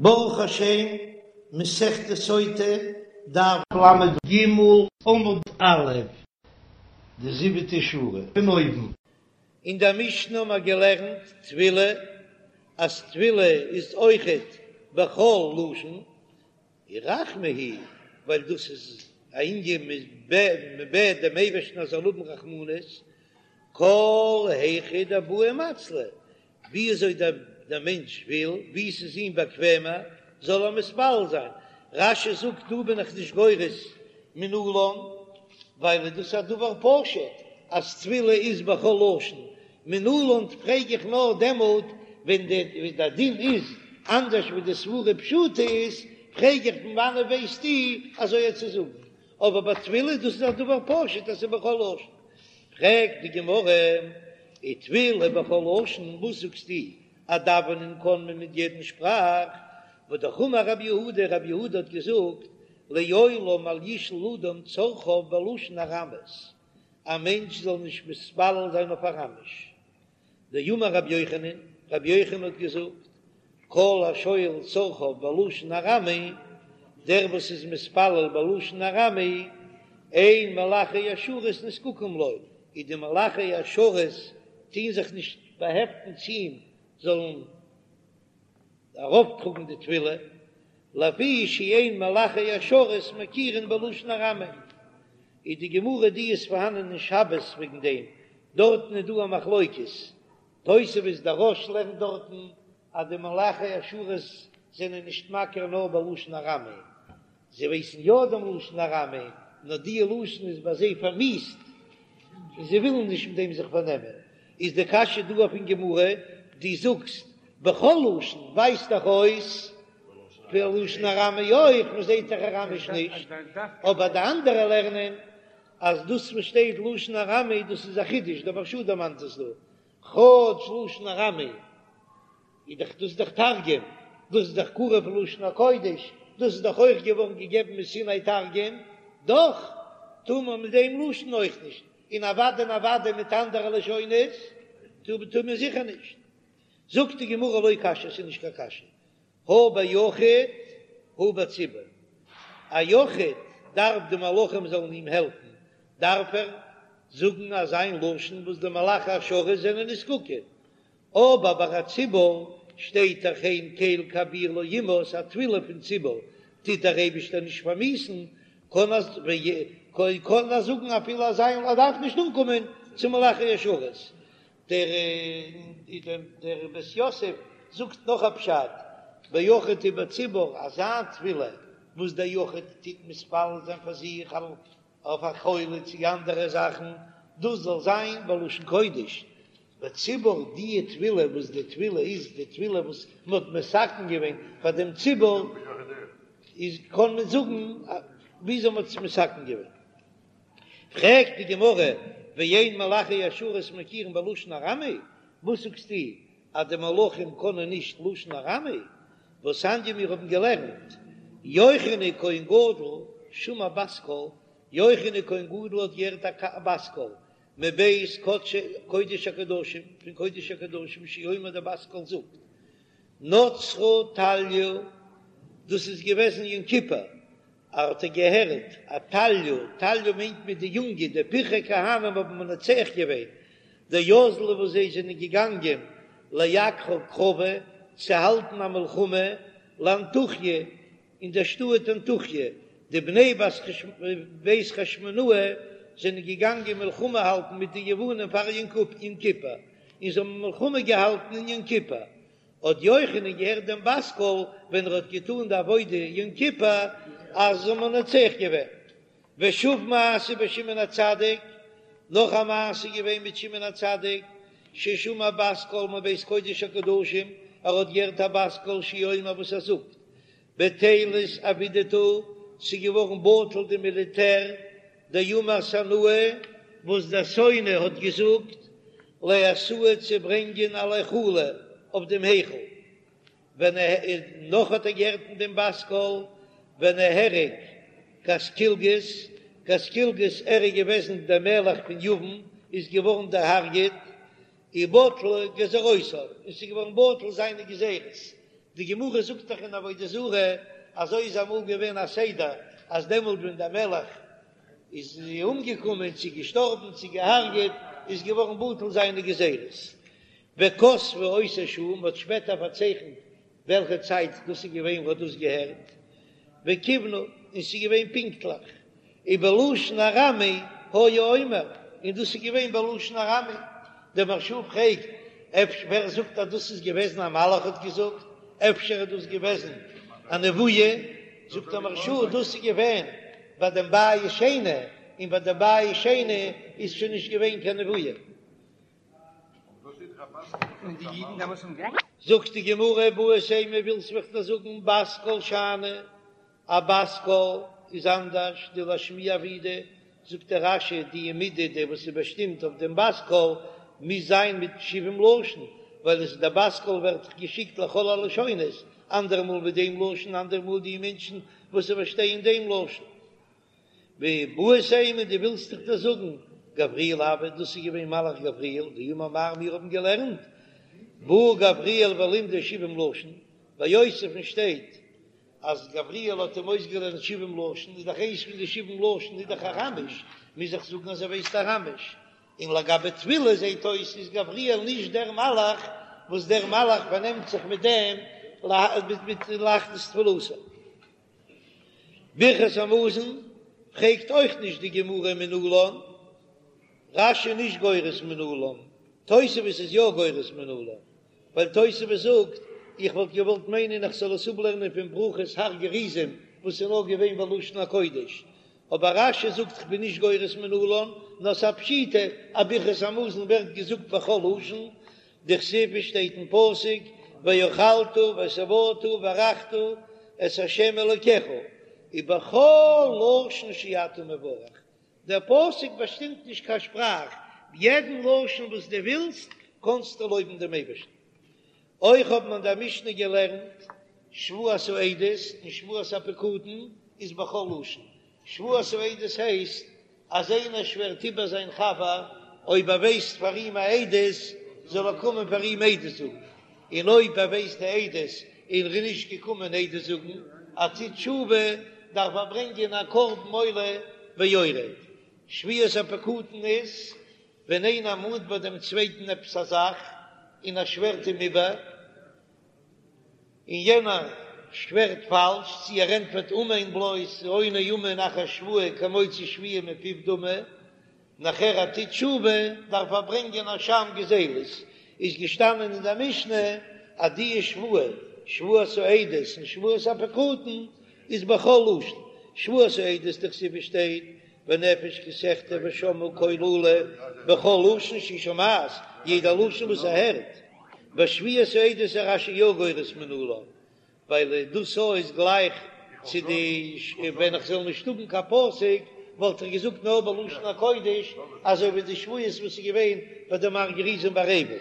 ברוך השם, מסכת סוטה, דף ל"ג עמוד א', די זיבעטע שורה פון אויבן. אין דער משנה האבן מיר געלערנט תפילה, אז תפילה איז אויכעט בכל לשון, רחמי הוא, ווייל דאס איז א ענין מען בעט דעם אייבערשטן אז ער זאל האבן רחמנות, כל היכא דבעי מצלי, ווי אזוי דער מענטש וויל, ווי ס'איז אים באקוועמער, זאל ער מתפלל זיין. רש"י זאגט, דא בין איך נישט גורס מנלן, ווייל דאס איז א דבר פשוט אז תפילה איז בכל לשון, מנלן פרעג איך נאר דעמאלט ווען דער דין איז אנדערש ווי די סברה פשוטה איז, פרעג איך פון וואנעט ווייסטו אזוי צו זאגן, אבער ביי תפילה דאס איז א דבר פשוט אז ס'איז בכל לשון. פרעגט די גמרא, ותפילה בכל לשון, וואס זאגסטו אז דאווענען קען מען מיט יעדן שפראך? והא אמר רב יהודה, רב יהודה האט געזאגט, לעולם אל ישאל אדם צרכיו בלשון ארמית, א מענטש זאל נישט מתפלל זיין אויף אראמיש. דאמר רבי יוחנן, רבי יוחנן האט געזאגט, כל השואל צרכיו בלשון ארמי, דער וואס איז מתפלל בלשון ארמי, אין מלאכי השרת נזקקים לו, איז די מלאכי השרת טוהן זיך נישט באהעפטן צו אים זאלן ארויפטראגן די תפילה, לפי שאין מלאכי השרת מכירין בלשון ארמי, איז די גמרא די איז פארהאנען אין שבת וועגן דעם, דארטן איז דא א מחלוקת, תוספות דער רא"ש לערנט דארטן אז די מלאכי השרת זענען נישט מכיר נאר בלשון ארמי, זיי ווייסן יא דעם לשון ארמי, נאר די לשון איז ביי זיי פארמיאוסט, און זיי ווילן נישט מיט דעם זיך פארנעמען. איז די קשיא דא אויפן גמרא, דו זאגסט בכל לשון, ווייזט דאך אויס בלשון ארמי אויך, מען זעט דאך אראמיש נישט, אבער די אנדערע לערנען אז דאס וואס שטייט לשון ארמי דאס איז א חידוש, דער מהרש"א דערמאנט עס דא, כאטש לשון ארמי איז דאך דאס דאך תרגום, דאס איז דאך קרוב לשון הקודש, דאס איז דאך אויך געווארן געגעבן מסיני תרגום, דאך טאר מען מיט דעם לשון אויך נישט, און אוודאי און אוודאי מיט אנדערע לשונות טאר מען זיכער נישט. זאגט די גמרא לא קשיא, ס'איז נישט קיין קשיא, הא ביחיד הא בציבור, א יחיד דארף די מלאכים זאלן אים העלפן, דארף ער זאגן אזא מין לשון וואס די מלאכי השרת זענען נזקקים, אבער ביי א ציבור שטייט דאך הן קל כביר לא ימאס, א תפילה פון ציבור טוט דער אייבישטער נישט פארמיאוסן, קען קען ער זאגן אפילו אזא ער דארף נישט אנקומען צו מלאכי השרת. דער דער בית יוסף זאגט נאך א פשט, ביחיד ובציבור, אזא תפילה וואס דער יחיד טוט מתפלל זיין פאר זיך אויף א חולה צו אנדערע זאכן, דאס זאל זיין בלשון קודש, בציבור די תפילה וואס די תפילה איז די תפילה וואס מען האט מתקן געווען פאר דעם ציבור, איז קען מען זאגן וויאזוי מען האט עס מתקן געווען. פרעגט די גמרא, ואין מלאכי השרת מכירין בלשון ארמי, וואס זאגסטו אז די מלאכים קענען נישט לשון ארמי? והתניא מיר האבן געלערנט, יוחנן כהן גדול שמע בת קול, יוחנן כהן גדול האט געהערט א בת קול מבית קודש הקדשים, פון קודש הקדשים שהוא אומר די בת קול זאגט, נצרה טליא, דאס איז געוועזן יום כיפור, האט ער געהערט א טליא, טליא מיינט מען די יונגע, די פרחי כהנים האבן מנצח געווען, דאזלו וואס זיי זענען געגאנגען לאגרא קרבא צו האלטן א מלחמה לאנטוכיא אין דער שטאט אנטוכיא, די בני בית חשמונאי זענען געגאנגען מלחמה האלטן מיט די יוונים פאר יום כיפור, און זיי האבן מלחמה געהאלטן אין יום כיפור, האט יוחנן געהערט דעם בת קול ווען ער האט געטאן די עבודה יום כיפור אז זיי האבן מנצח געווען. ושוב מעשה בשמעון הצדיק, נאך א מעשה געווען מיט שמעון הצדיק, ששמע בת קול מבית קודש הקדשים, ער האט געהערט א בת קול שהוא אומר וואס ער זאגט, בטילת עבידתא, ס'איז געווארן בטל די מיליטער, דאמר סנאי, וואס דער שונא האט געזאגט, לאתויי צו ברענגען על היכלא אויף דעם היכל, ונהרג נאך האט ער געהערט אין דעם בת קול, ונהרג קסקלגוס, קסקלגוס ער איז געוועזן דער מלך פון יוון, איז געווארן דערהרגעט, ובטלו גזירותיו, און ס'איז געווארן בטל זיינע גזירות. די גמרא זאגט דאך אין עבודה זרה, אזוי איז אמאל געווען א סדר, אז דעמאלט ווען דער מלך איז אומגעקומען צו געשטארבן צו געהארגעט, איז געווארן בטל זיינע גזירות. וכתבו אותה שעה, מ'האט שפעטער פארצייכנט וועלכע צייט דאס איז געווען וואס דאס געהערט, וכיוונו, און ס'איז געווען פונקטליך, ובלשון ארמי היה אומר, און דאס איז געווען בלשון ארמי. דער מהרש"א פרעגט, אפשר ווער זאגט אז דאס איז געוועזן א מלאך האט געזאגט, אפשר איז דאס געוועזן א נבואה, זאגט דער מהרש"א דאס איז געווען ביי דעם בית שני, און ביי דעם בית שני איז שוין נישט געווען קיין נבואה. זאגט די גמרא איבעית אימא ווילסט וועל איך דיר זאגן בת קול שאני, א בת קול איז אנדערש דלאשמועי עבידא, זאגט דער רש"י די מידה די וואס איז באשטימט אויף דעם בת קול מוז זיין מיט שבעים לשון, ווייל עס איז דער בת קול ווערט דאך געשיקט לכל הלשונות, אנדערע מאל מיט דעם לשון אנדערע מאל די מענטשן וואס זיי פארשטייען דעם לשון. ואיבעית אימא דו ווילסט וועל איך דיר זאגן, גבריאל הוה, דאס איז געווען מלאך גבריאל, דאמר מר מיר האבן געלערנט, בא גבריאל ולימדו שבעים לשון, ביי יוסף'ן שטייט אז גבריאל האט אים אויסגעלערנט שבעים לשון, איז דאך איינס פון די שבעים לשון איז דאך אראמיש, מוז איך זאגן אז ער ווייסט אראמיש, און לגבי תפילה זעט אויס איז גבריאל נישט דער מלאך וואס דער מלאך פארנעמט זיך מיט דעם מיט להכניס תפילתו. ברכת המזון פרעגט אויך נישט די גמרא מנלן, רש"י נישט גורס מנלן, תוספות איז יא גורס מנלן, ווייל תוספות זאגט, איך וואלט געוואלט מיינען איך זאל עס אפלערנען פון ברכות הר גריזים וואס איז נאר געווען בלשון הקודש, אבער רש"י זאגט איך בין נישט גורס מנלן, נאר ס'א פשיטא אז ברכת המזון ווערט געזאגט בכל לשון, דכתיב עס שטייט אין פסוק ואכלת ושבעת וברכת את ה' אלוקיך ובכל לשון שאתה מברך, דער פסוק באשטימט נישט קיין שפראך, יעדן לשון וואס דו ווילסט קענסטו לויבן דעם אייבערשטן. אויך האט מען אין דער משנה געלערנט שבועת העדות און שבועת הפקדון איז בכל לשון, שבועת העדות הייסט אז איינער שווערט איבער זיין חבר אויב ער ווייסט פאר אים א עדות זאל ער קומען פאר אים עדות זאגן, און אויב ער ווייסט די עדות און ער איז נישט געקומען עדות זאגן, ער טוט תשובה, דארף ער ברענגען א קרבן עולה ויורד. שבועת הפקדון איז ווען איינער מאנט ביי דעם צווייטן עפעס א זאך און ער שווערט אים איבער, און יענער שווערט פאלש, צי ער ענטפערט אמן בלויז, העונה אמן אחר שבועה כמוציא שבועה מפיו דמי, נאכער ער טוט תשובה דארף ער ברענגען אשם גזילות, איז געשטאנען אין דער משנה אז די שבועה, שבועת העדות און שבועת הפקדון, איז בכל לשון, שבועת העדות דכתיב שטייט ונפש כי תחטא ושמעה קול אלה בכל לשון שהיא שומעת, יעדע לשון וואס ער הערט. ביי שבועת העדות איז רש"י יא גורס מנלן, ווייל דאס א איז גלייך צו די ווען איך זאל נישט האבן קיין פסוק וואלט איך געזאגט נאר בלשון הקודש אזוי ווי די שבועות וואס איז געווען ביי דעם הר גריזים והר עיבל.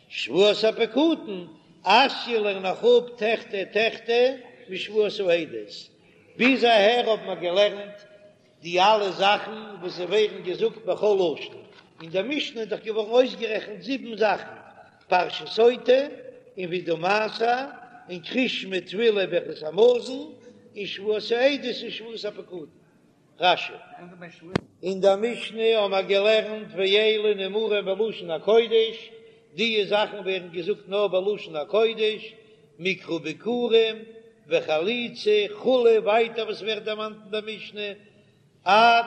שבועת הפקדון אתיא לערן איך אפ תחטא תחטא משבועת העדות, ביז אהער האט מען געלערנט די אלע זאכן וואס זיי ווערן געזאגט בכל לשון, אין דער משנה איז דאך געווארן אויסגערעכנט זיבן זאכן, פרשת סוטה, און וידוי מעשר, און קריאת שמע תפילה ברכת המזון, און שבועת העדות און שבועת הפקדון. רש"י. אין דער משנה האבן מיר געלערנט ואלו נאמרים בלשון הקודש, די זאכן ווערן געזאגט נאר בלשון הקודש, מקרא ביכורים וחליצה כו', ווייטער וואס ווערט דערמאנט אין דער משנה, עד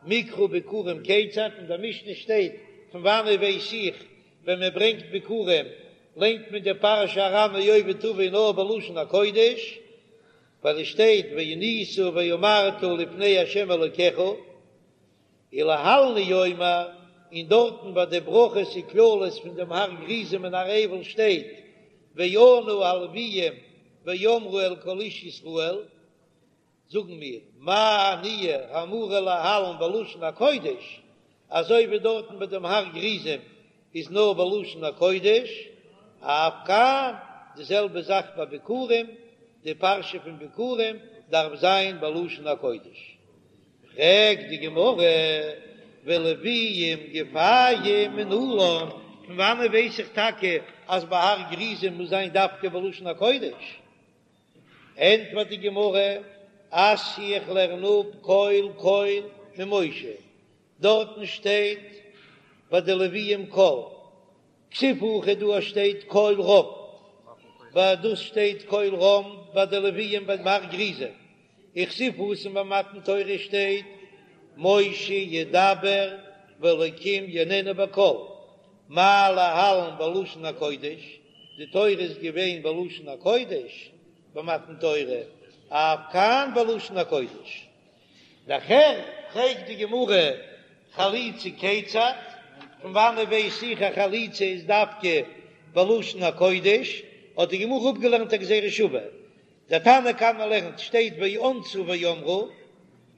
מקרא ביכורים כיצד, אין דער משנה שטייט פון וואנעט ווייס איך ווען מען ברענגט ביכורים ליינט מען די פרשה ארמי אובד אבי נאר בלשון הקודש, ווייל עס שטייט וענית ואמרת לפני ה' אלוקיך, ולהלן הוא אומר, און דארטן ביי די ברכות וקללות פון דעם הר גריזים און הר עיבל שטייט וענו הלוויים ואמרו אל כל איש ישראל, זאגן מיר, מה עניה האמורה להלן בלשון הקודש, אזוי ווי דארטן ביי דעם הר גריזים איז נאר בלשון הקודש, אף כאן, די זעלבע זאך ביי ביכורים, די פרשה פון ביכורים דארף זיין בלשון הקודש. פרעגט די גמרא, ולוויים גופייהו מנלן, פון וואנען ווייס איך טאקע אז ביי הר גריזים מוז זיין דווקא בלשון הקודש? ענטפערט די גמרא, אתיא איך לערן אפ קול קול ממשה, דארטן שטייט ביי די לוויים קול, כתיב הכא דא שטייט קול רם, ביי דאס שטייט קול רם ביי די לוויים ביים הר גריזים, וכתיב התם ביי מתן תורה שטייט משה ידבר והאלקים יעננו בקול, מה להלן בלשון הקודש, די תורה איז געווען בלשון הקודש במתן תורה, אף כאן בלשון הקודש. נאכער פרעגט די גמרא חליצה כיצד, פון וואנעט ווייס איך אז חליצה איז דווקא בלשון הקודש, האט די גמרא אפגעלערנט א גזירה שווה, דער תנא קמא לערנט שטייט וענתה ואמרה,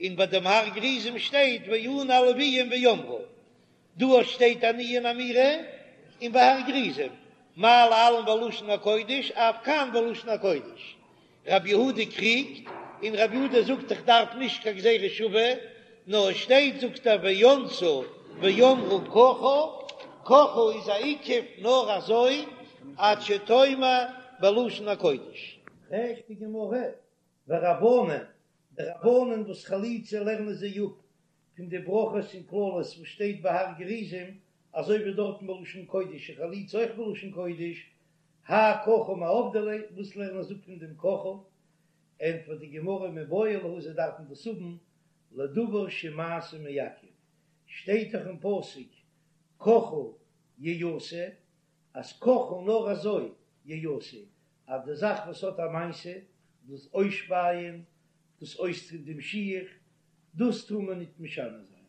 און ביי דעם הר גריזים שטייט וענו הלוויים ואמרו, דא שטייט עניה און אמירה, און ביי הר גריזים, מה להלן בלשון הקודש אף כאן בלשון הקודש. רבי יהודה קריגט, און רבי יהודה זאגט איך דארף נישט קיין גזירה שווה, נאר עס שטייט זאגט ער וענתה ואמרה ככה, ככה איז א עיכוב נאר אזוי עד שתאמר בלשון הקודש. פרעגט די גמרא, ורבנן, די רבנן וואס חליצה לערנען זיי אפ פון די ברכות און קללות וואס שטייט ביי הר גריזים, אזוי ווי דארטן בלשון קודש איז חליצה אויך בלשון קודש, האי ככה מאי עבדי ליה, וואס לערנען זיי אפ פון דעם ככה? ענטפערט די גמרא מיבעי להו זיי דארפן דאס האבן לדבר שמעשה מעכב, שטייט דאך אין פסוק ככה יעשה, אז ככה נאר אזוי יעשה, אז די זאך וואס האט א מעשה, דאס אויסשפייען, דאס אויסטון דעם שיך, דאס טאר מען ניט משנה זיין,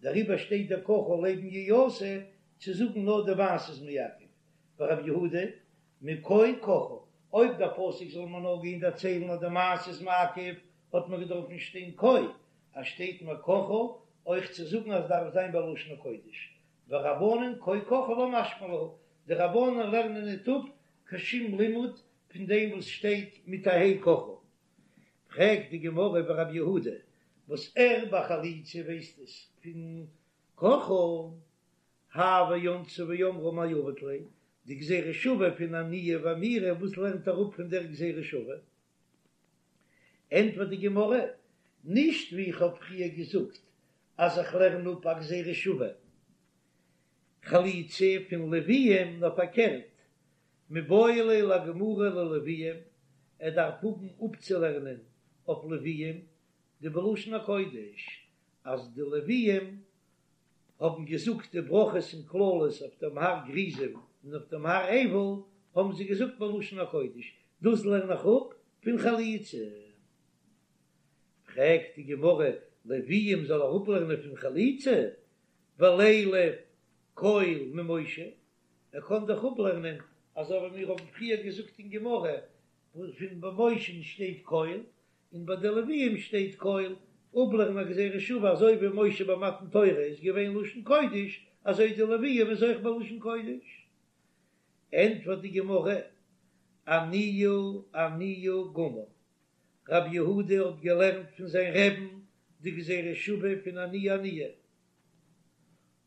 דעריבער שטייט דער ככה לעבן יעשה צו זאגן נאר די מעשה איז מעכב, ורב יהודה מכה ככה, אויב דער פסוק זאל מען נאר גיין דערציילן אז די מעשה איז מעכב, האט מען געדארפן שטיין כה, אז שטייט מיר ככה, אויך צו זאגן אז דארף זיין בלשון הקודש, ורבנן כה ככה לא משמע להו, די רבנן לערנען ניט אפ קיין שום לימוד פון דעם וואס שטייט מיט א ה' ככה. פרעגט די גמרא ורב יהודה וואס ער ביי חליצה ווייסט עס פון ככה, האי וענתה ואמרה מאי עביד ליה, די גזירה שווה פון עניה ואמירה וואס לערנט ער אפ פון דער גזירה שווה? ענטפערט די גמרא, נישט ווי איך האב פריער געזאגט אז איך לערן אפ א גזירה שווה חליצה פון לוויים, נאר פארקערט, מיבעי ליה לגמורי ללוויים, ער דארף האבן אפצולערנען אויף לוויים דבלשון הקודש, אז די לוויים האבן געזאגט די ברכות און קללות אויף דעם הר גריזים און אויף דעם הר עיבל האבן זיי געזאגט בלשון הקודש, דאס לערן איך אפ פון חליצה. פרעגט די גמרא, לוויים זאל ער אפלערנען פון חליצה? ולילף קול ממשה, ער קען דאך אפלערנען אזוי ווי מיר האבן פריער געזאגט אין גמרא, פון ביי משה'ן שטייט קול, און ביי די לוויים שטייט קול, אפלערנען א גזירה שווה אזוי ווי משה ביי מתן תורה איז געווען לשון קודש, אזוי די לוויים איז אויך בלשון קודש. ענטפערט די גמרא, עניה עניה גמר, רב יהודה האט געלערנט פון זיין רעבן די גזירה שווה פון עניה עניה,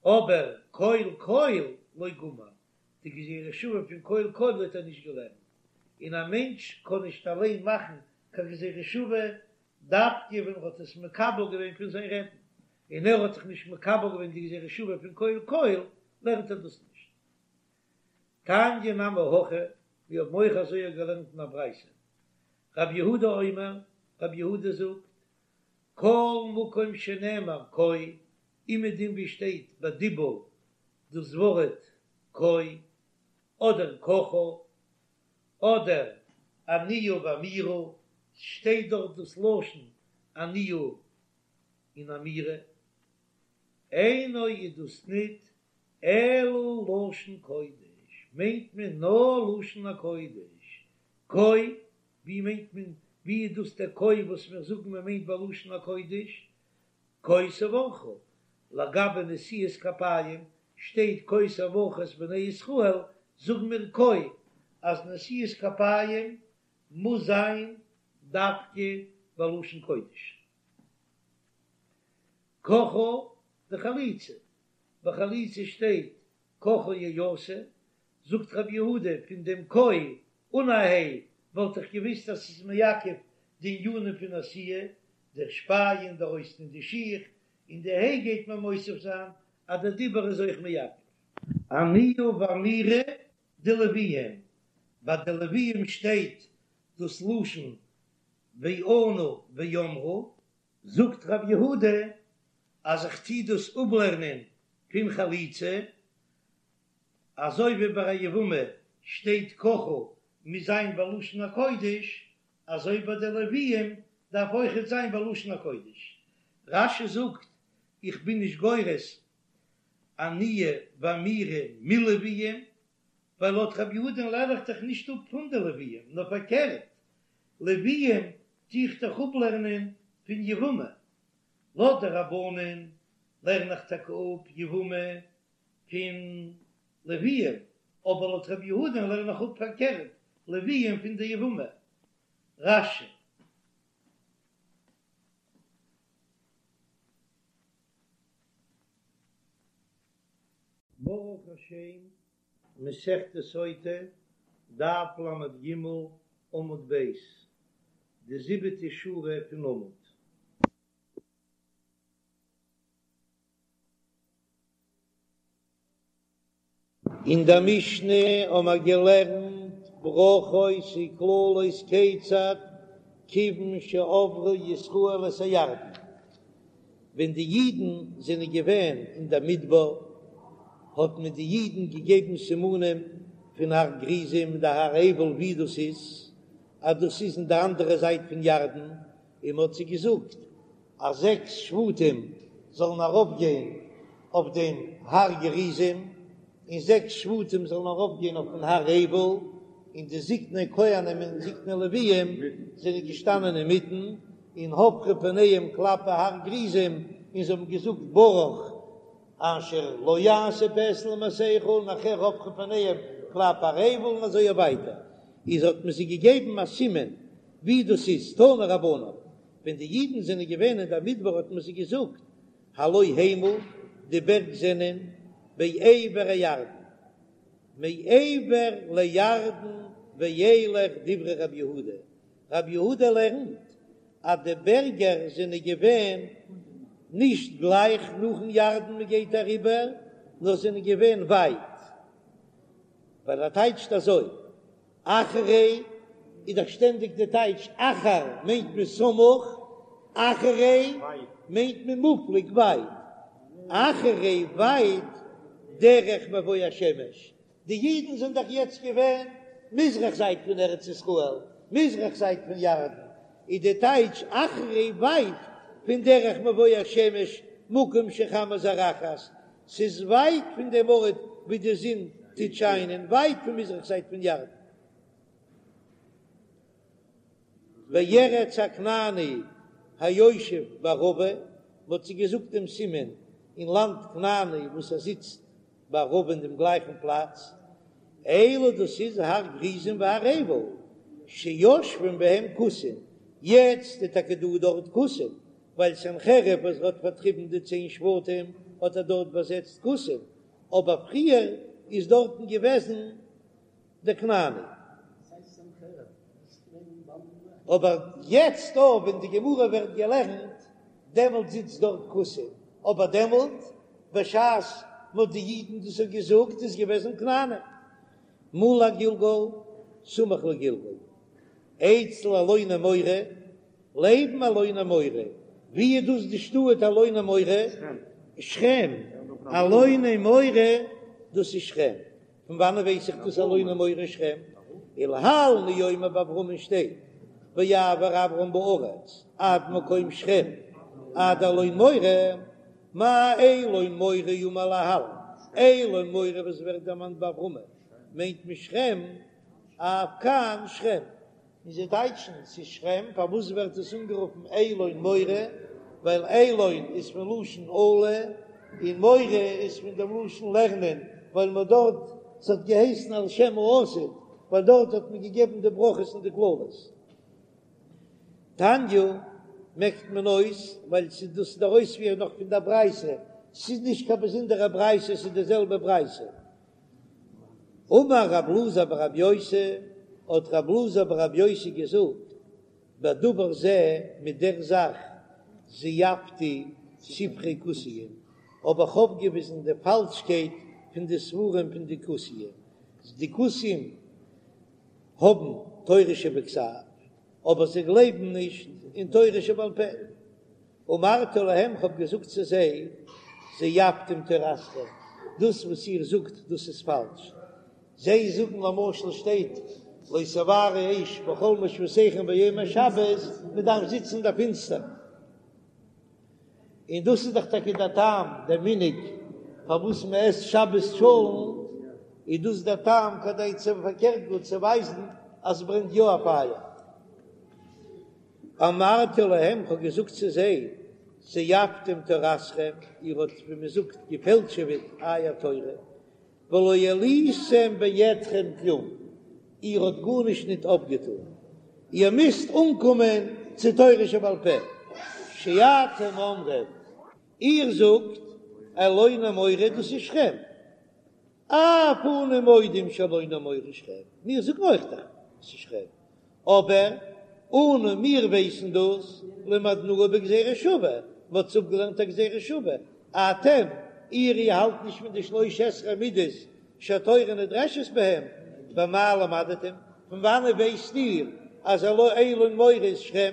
אבער קול קול לא גמר, די גזירה שווה פון קול קול האט ער נישט געלערנט, און א מענטש קען נישט אליין מאכן קיין גזירה שווה דווקא ווען ער האט עס מקבל געווען פון זיין רעבן, און ער האט זיך נישט מקבל געווען די גזירה שווה פון קול קול, לערנט ער דאס נישט. תניא נמי הכי, מיר האבן אויך אזוי געלערנט אין א ברייתא, רב יהודה אומר, רב יהודה זאגט, כל מקום שנאמר כה, אומעדום ווי שטייט בדיבור דאס ווארט כה, אדער ככה, אדער עניה ואמירה, שטייט דארט דאס לשון עניה און אמירה, אינו איז דאס ניט אלא לשון קודש, מיינט מען נאר לשון הקודש, כה, ווי מיינט מען, ווי איז דאס דער כה וואס מיר זאגן מען מיינט בלשון הקודש, כה תברכו, לגבי נשיאת כפיים שטייט כה תברכו את בני ישראל, זאגן מיר כה אז נשיאת כפיים מוז זיין דווקא בלשון קודש. ככה דחליצה, ביי חליצה שטייט ככה יעשה. זאגט רבי יהודה, פון דעם כה אן א ה' וואלט איך געוויסט אז ס'איז מעכב די ענינים פון עשיה, דער שפייען, דער אויסטון די שיך, און די ה' גייט מען מוסיף זיין אז דער דיבור איז אויך מעכב. עניה ואמירה דלוויים, ביי די לוויים שטייט דאס לשון וענו ואמרו, זאגט רב יהודה אז איך טוה דאס אפלערנען פון חליצה, אזוי ווי ביי א יבמה שטייט ככה מוז זיין בלשון הקודש, אזוי ביי די לוויים דארף אויכעט זיין בלשון הקודש. רש"י זאגט איך בין נישט גורס עניה ואמירה מלוויים, ווייל לויט רבי יהודה'ן לערן איך דאך נישט אפ פון די לוויים, נאר פארקערט, לוויים טו איך דאך אפלערנען פון יבמה, לויט די רבנן לערן איך טאקע אפ יבמה פון לוויים, אבער לויט רבי יהודה'ן לערן איך אפ פארקערט, לוויים פון די יבמה. רש"י. ברוך השם, מסכת סוטה, דף ל"ג, עמוד ב', די זיבעטע שורה פון עמוד. אין דער משנה האמער געלערנט ברכות וקללות כיצד כיוון שעברו ישראל את הירדן, ווען די אידן זענען געווען אין דער מדבר האט מען די אידן געגעבן סימנים פון הר גריזים און די הר עיבל ווי דאס איז, אז דאס איז אין די אנדערע זייט פון ירדן, און מען האט זיי געזאגט אז זעקס שבטים זאלן ארויפגיין אויף דעם הר גריזים, און זעקס שבטים זאלן ארויפגיין אויפן הר עיבל, און די זקני כהנים און זקני לוויים זענען געשטאנען אינמיטן, און הפכו פניהם כלפי הר גריזים, און זיי האבן געזאגט ברוך אשר לא יעשה פסל ומסכה, און נאכהער הפכו פניהם כלפי הר עיבל, און אזוי ווייטער, איז האט מען זיי געגעבן א סימן ווי דאס איז, תנו רבנן, ווען די אידן זענען געווען אין דער מדבר האט מען זיי געזאגט, הלא המה, די בערג זענען בעבר הירדן, מעבר לירדן ואילך דברי רבי יהודה, רבי יהודה לערנט אז די בערגער זענען געווען נישט גלייך נאכן ירדן מען גייט אריבער, נאר זענען געווען ווייט, ווייל ער טייטשט אזוי, אחרי איז דאך שטענדיג די טייטש אחר מיינט מען סמוך, אחרי מיינט מען מופלג ווייט, אחרי ווייט דרך מבוא השמש, די אידן זענען דאך יעצט געווען מזרח זייט פון ארץ ישראל, מזרח זייט פון ירדן, איז די טייטש אחרי ווייט פון דרך מבוא השמש מקום שחמה זורחת, ס'איז ווייט פון דעם ארט וואו די זון טוט שיינען, ווייט פון מזרח זייט פון ירדן. וארץ הכנעני היושב בערבה, מ'האט זיי געזאגט דעם סימן אין לאנד כנעני וואס ער זיצט בערבה אין דעם גלייכן פלאץ, אלו דאס איז הר גריזים והר עיבל שיושבים בהם כותים, יעצט איז טאקע דא דארט כותים, ווייל סנחריב וואס האט פארטריבן די צען שבטים האט ער דארט באזעצט כותים, אבער פריער איז דארטן געוועזן די כנעני. אבער יעצט דא ווען די גמרא ווערט געלערנט דעמאלט זיצט דארט כותים, אבער דעמאלט בשעת מ'האט די אידן דאס האט געזאגט איז געוועזן כנעני. מול הגלגל סמוך לגלגל אצל אלוני מורה לעבן אלוני מורה, ווי איז דאס די שטאט אלוני מורה? שכם, אלוני מורה דאס איז שכם, פון וואנען ווייס איך דאס אלוני מורה שכם? ולהלן הוא אומר ביי אברהמען שטייט ויעבר אברם בארץ עד מקום שכם עד אלון מורה, מה אלון מורה האמור להלן, אלון מורה וואס ווערט דערמאנט ביי אברהמען מיינט מען שכם, אף כאן שכם. און זיי טייטשן ס'איז שכם, פארוואס ווערט עס אנגערופן אלון מורה? ווייל אלון איז פון לשון עלה, און מורה איז פון דעם לשון לערנען, ווייל מ'האט דארט, ס'האט געהייסן על שם העתיד, ווייל דארט האט מען געגעבן די ברכות און די קללות. תניא מעקט מען אויס, ווייל ס'איז דאס דער אויספיר נאך פון דער ברייתא, ס'איז נישט קיין באזונדערע ברייתא, ס'איז די זעלבע ברייתא. אמר רב אלעזר ברב יוסי, האט רב אלעזר ברב יוסי געזאגט, בדבר זה, מיט דער זאך, זייפתי ספרי כוסיים, האב איך אויפגעוויזן די פאלשקייט פון די ספרים פון די כוסיים, די כוסיים האבן תורה שבכתב, אבער זיי גלייבן נישט אין תורה שבעל פה. אמרתי להם, כ'האב געזאגט צו זיי, זייפתם תורתכם, דאס וואס איר זאגט, דאס איז פאלש. זיי זאגן למשל שטייט לא תבערו אש בכל מושבותיכם ביום השבת, מען דארף זיצן אין דער פינסטער. און דאס איז דאך טאקע דער טעם, דער מנהג פארוואס מען עסט שבת טשולנט, איז דאס דער טעם כדי צו פארקערט גאר צו ווייזן אז עס ברענט יא א פייער. אמרתי להם, כ'האב געזאגט צו זיי, זייפתם תורתכם, איר האט ווי מען זאגט געפעלטשעוועט אייער תורה, ולא העליתם בידכם כלום, איר האט גארנישט ניט אויפגעטאן, איר מוזט אנקומען צו תורה שבעל פה, שאתם אומרים, איר זאגט, אלוני מורה דאס איז שכם, אף אנו מודים שאלוני מורה שכם, מיר זאגן אויך דאך ס'איז שכם, אבער אנו מיר ווייסן דאס למדנוה בגזירה שווה, מ'האט עס אפגעלערנט א גזירה שווה, אתם, איר איר האלט נישט פון די שלש עשרה מידות שהתורה נדרשת בהם, במה למדתם, פון וואנעט ווייסט איר אז אלון מורה איז שכם?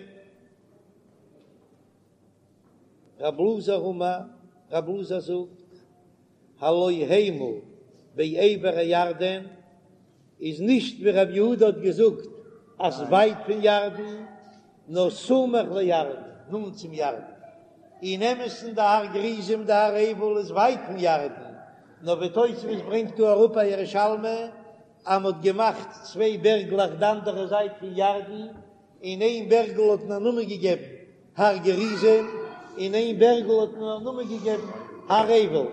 רב אלעזר אמר, רב אלעזר זאגט, הלא המה בעבר הירדן, איז נישט ווי רב יהודה האט געזאגט אז ווייט פון ירדן, נאר סמוך לירדן, נאנט צום ירדן. אין אמת'ן די הר גריזים די הר עיבל איז ווייט פון ירדן, נאר ווי תוספות ברענגט דא אראפ א ירושלמי אז מ'האט געמאכט צוויי בערגלעך די אנדערע זייט פון ירדן, און איין בערגל האט מען א נאמען געגעבן הר גריזים, און איין בערגל האט מען א נאמען געגעבן הר עיבל.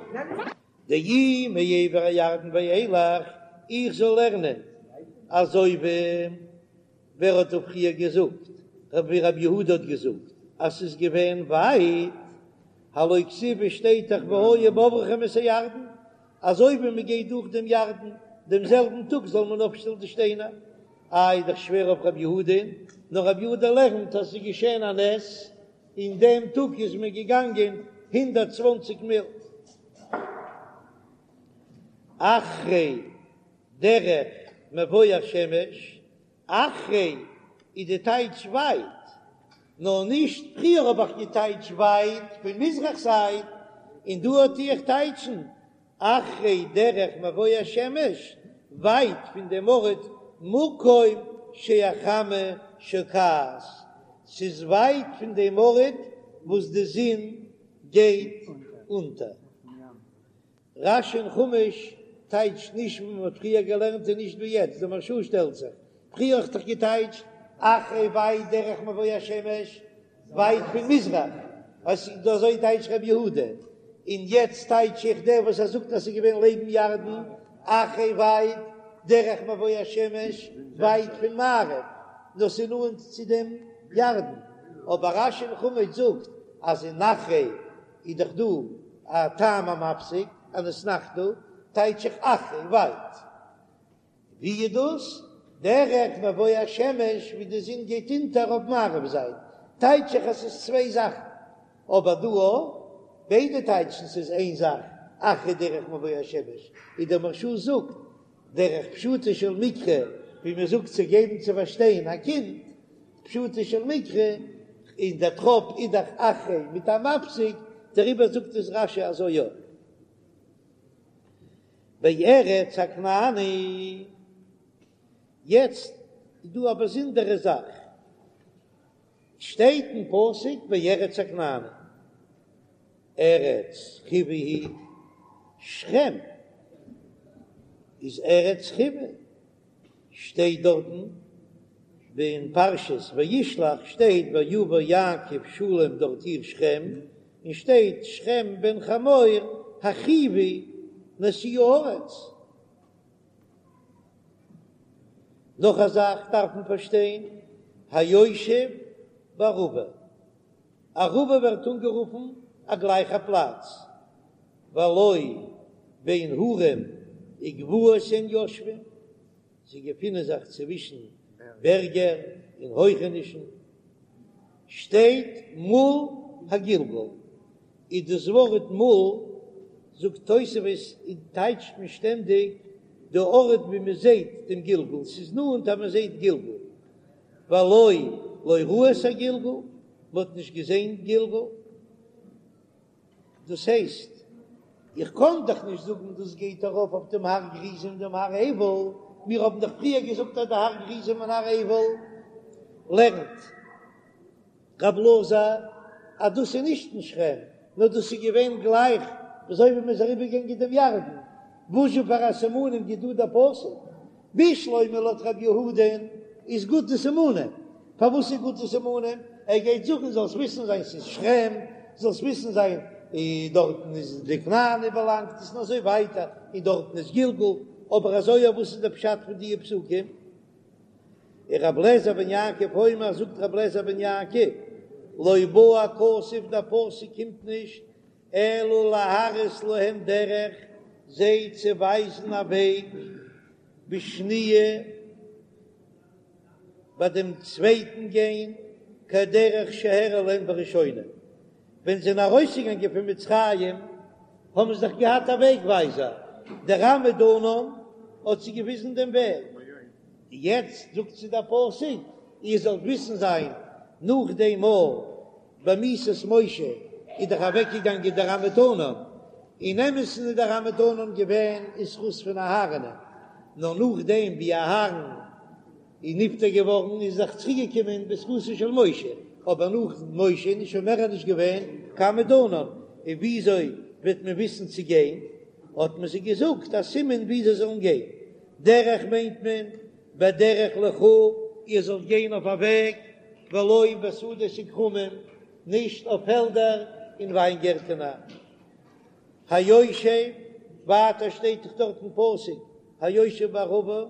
דאי מעבר הירדן ואילך, איך זאל לערנען אזוי ווי ווער האט דא פריער געזאגט, ווי רב יהודה האט געזאגט אז ס'איז געווען ווייט, הלא כתיב שטייט דאך והיה בעברכם את הירדן, אזוי ווי מען גייט דורך דעם ירדן דעם זעלבן טאג זאל מען אויפשטעלן די שטיינער. איי איז דאך שווער אויף רב יהודה'ן, נאר רב יהודה לערנט אז ס'איז געשען א נס, אין דעם טאג איז מען געגאנגען 120 מיל. אחרי דרך מבוא השמש, אחרי איז די טייטש ווייט, נאר נישט פריער האב איך געטייטש ווייט פון מזרח זייט, און דא טו איך טייטשן אחרי דרך מבוא השמש, ווייט פון דעם ארט מקום שהחמה שוקעת, ס'איז ווייט פון דעם ארט וואס די זון גייט אונטער. רש"י אין חומש טייטשט נישט ווי מ'האט פריער געלערנט און נישט ווי יעצט, די מהרש"א שטעלט זיך, פריער האט דאך געטייטשט אחרי ווייט דרך מבוא השמש, ווייט פון מזרח, אזוי טייטשט רבי יהודה, און יעצט טייטש איך דער וואס ער זאגט אז ס'איז געווען לעבן ירדן, אחרי ווייט דרך מבוא השמש, ווייט פון מערב, נאר ס'איז נאנט צו דעם ירדן, אבער רש"י אין חומש זאגט אז אין אחרי איז דאך דא א טעם המפסיק, אן אתנחתא, טייטש איך אחרי ווייט. ווי איז דאס? דרך מבוא השמש ווי די זון גייט אונטער אויף מערב זייט, טייטש איך אז ס'איז צוויי זאכן, אבער דא אויך, ביידע טייטשן ס'איז איין זאך, אחרי דרך מבוא השמש, ווי דער מהרש"א זאגט, דרך פשוטו של מקרא, ווי מען זאגט צו געבן צו פארשטיין א קינד, פשוטו של מקרא, און דער טראפ איז דאך אחרי מיט א מפסיק, דעריבער זאגט עס רש"י אזוי יא. בארץ הכנעני, יעצט איז דא א באזונדערע זאך, שטייט אין פסוק בארץ הכנעני, ארץ חוי היא, שכם איז ארץ חוי, שטייט דארטן אין פרשת וישלח שטייט ויבא יעקב שלם דארט עיר שכם, און שטייט שכם בן חמור החוי נשיא הארץ. נאך א זאך דארף מען פארשטיין, היושב בערבה, ערבה ווערט אנגערופן א גלייכע פלאץ, והלא בין הרים. וגבעות הן יושבין, זיי געפינען זיך צווישן בערגער און הויכענישן, שטייט מול הגלגל, איז דאס ווארט מול, זאגט תוספות, און טייטשט מען שטענדיג די ארט ווי מען זעט דעם גלגל, ס'איז נאנט אז מען זעט גלגל, והלא לא ראו את הגלגל, מען האט נישט געזען גלגל. דאס הייסט, איך קען דאך נישט זאגן דאס גייט ארויף אויף דעם הר גריזים און דעם הר עיבל, מיר האבן דאך פריער געזאגט אז די הר גריזים און הר עיבל לערנט רב אלעזר אז דאס איז נישט אין שכם, נאר דאס איז געווען גלייך אזוי ווי מען איז אריבערגעגאנגען דעם ירדן, וואזשע פאר א סימנים גיט דא דער פסוק? בשלמא לויט רב יהודה'ן איז גוט די סימנים, פארוואס איז גוט די סימנים? ער גייט זאגן זאלסט וויסן זיין ס'איז שכם, זאלסט וויסן זיין דארטן איז די כנעני באלאנגט עס און אזוי ווייטער, און דארטן איז גלגל, אבער אזוי אויף וואס איז די פשט פון די פסוקים? און רבי אליעזר בן יעקב אומר זאגט רבי אליעזר בן יעקב לא בא הכתוב דער פסוק קומט נישט אלא להראות להם דרך זיי צו ווייזן א וועג בשניה ביי דעם צווייטן גיין כדרך שהראה להם בראשונה ווען זיי זענען ארויסגעגאנגען פון מצרים האבן זיי דאך געהאט א וועג ווייזער דער עמוד ענן האט זיי געוויזן דעם וועג יעצט זאגט זיי דער פסוק איר זאלט וויסן זיין נאך דעם מאל במיתת משה איז דאך אוועקגעגאנגען דער עמוד ענן, אין אמת'ן איז דער עמוד ענן געווען אין זכות פון אהרן'ען, נאר נאכדעם ווי אהרן איז נפטר געווארן איז דאך צוריקגעקומען בזכותו של משה, אבער נאך משה איז שוין מער נישט געווען קיין עמוד ענן, און וויאזוי וועט מען וויסן צו גיין? האט מען זיי געזאגט א סימן ווי זיי זאלן גיין, דרך מיינט מען בדרך לכו, איר זאלט גיין אויף א וועג, ולא בשדות וכרמים, נישט אויף פעלדער און וויינגערטענער. היושב, ווייטער שטייט דאך דארט אין פסוק, היושב בערבה,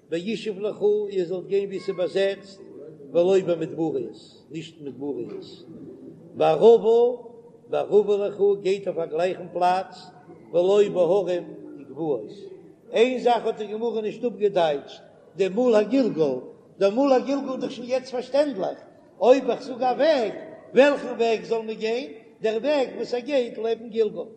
בישוב לכו, איר זאלט גיין וואו ס'איז באזעצט, ולא במדבריות, נישט אין מדבריות. בערבה, בערבה לכו, גייט אויף א גלייכן פלאץ, ולא בהרים וגבעות. איין זאך האט די גמרא נישט אפגעטייטשט, די מול הגלגל, דער מול הגלגל איז דאך שוין יעצט פארשטענדליך, אויב איך זאג א וועג, וועלכן וועג זאל מען גיין? דער וועג וואס ער גייט לעבן גלגל.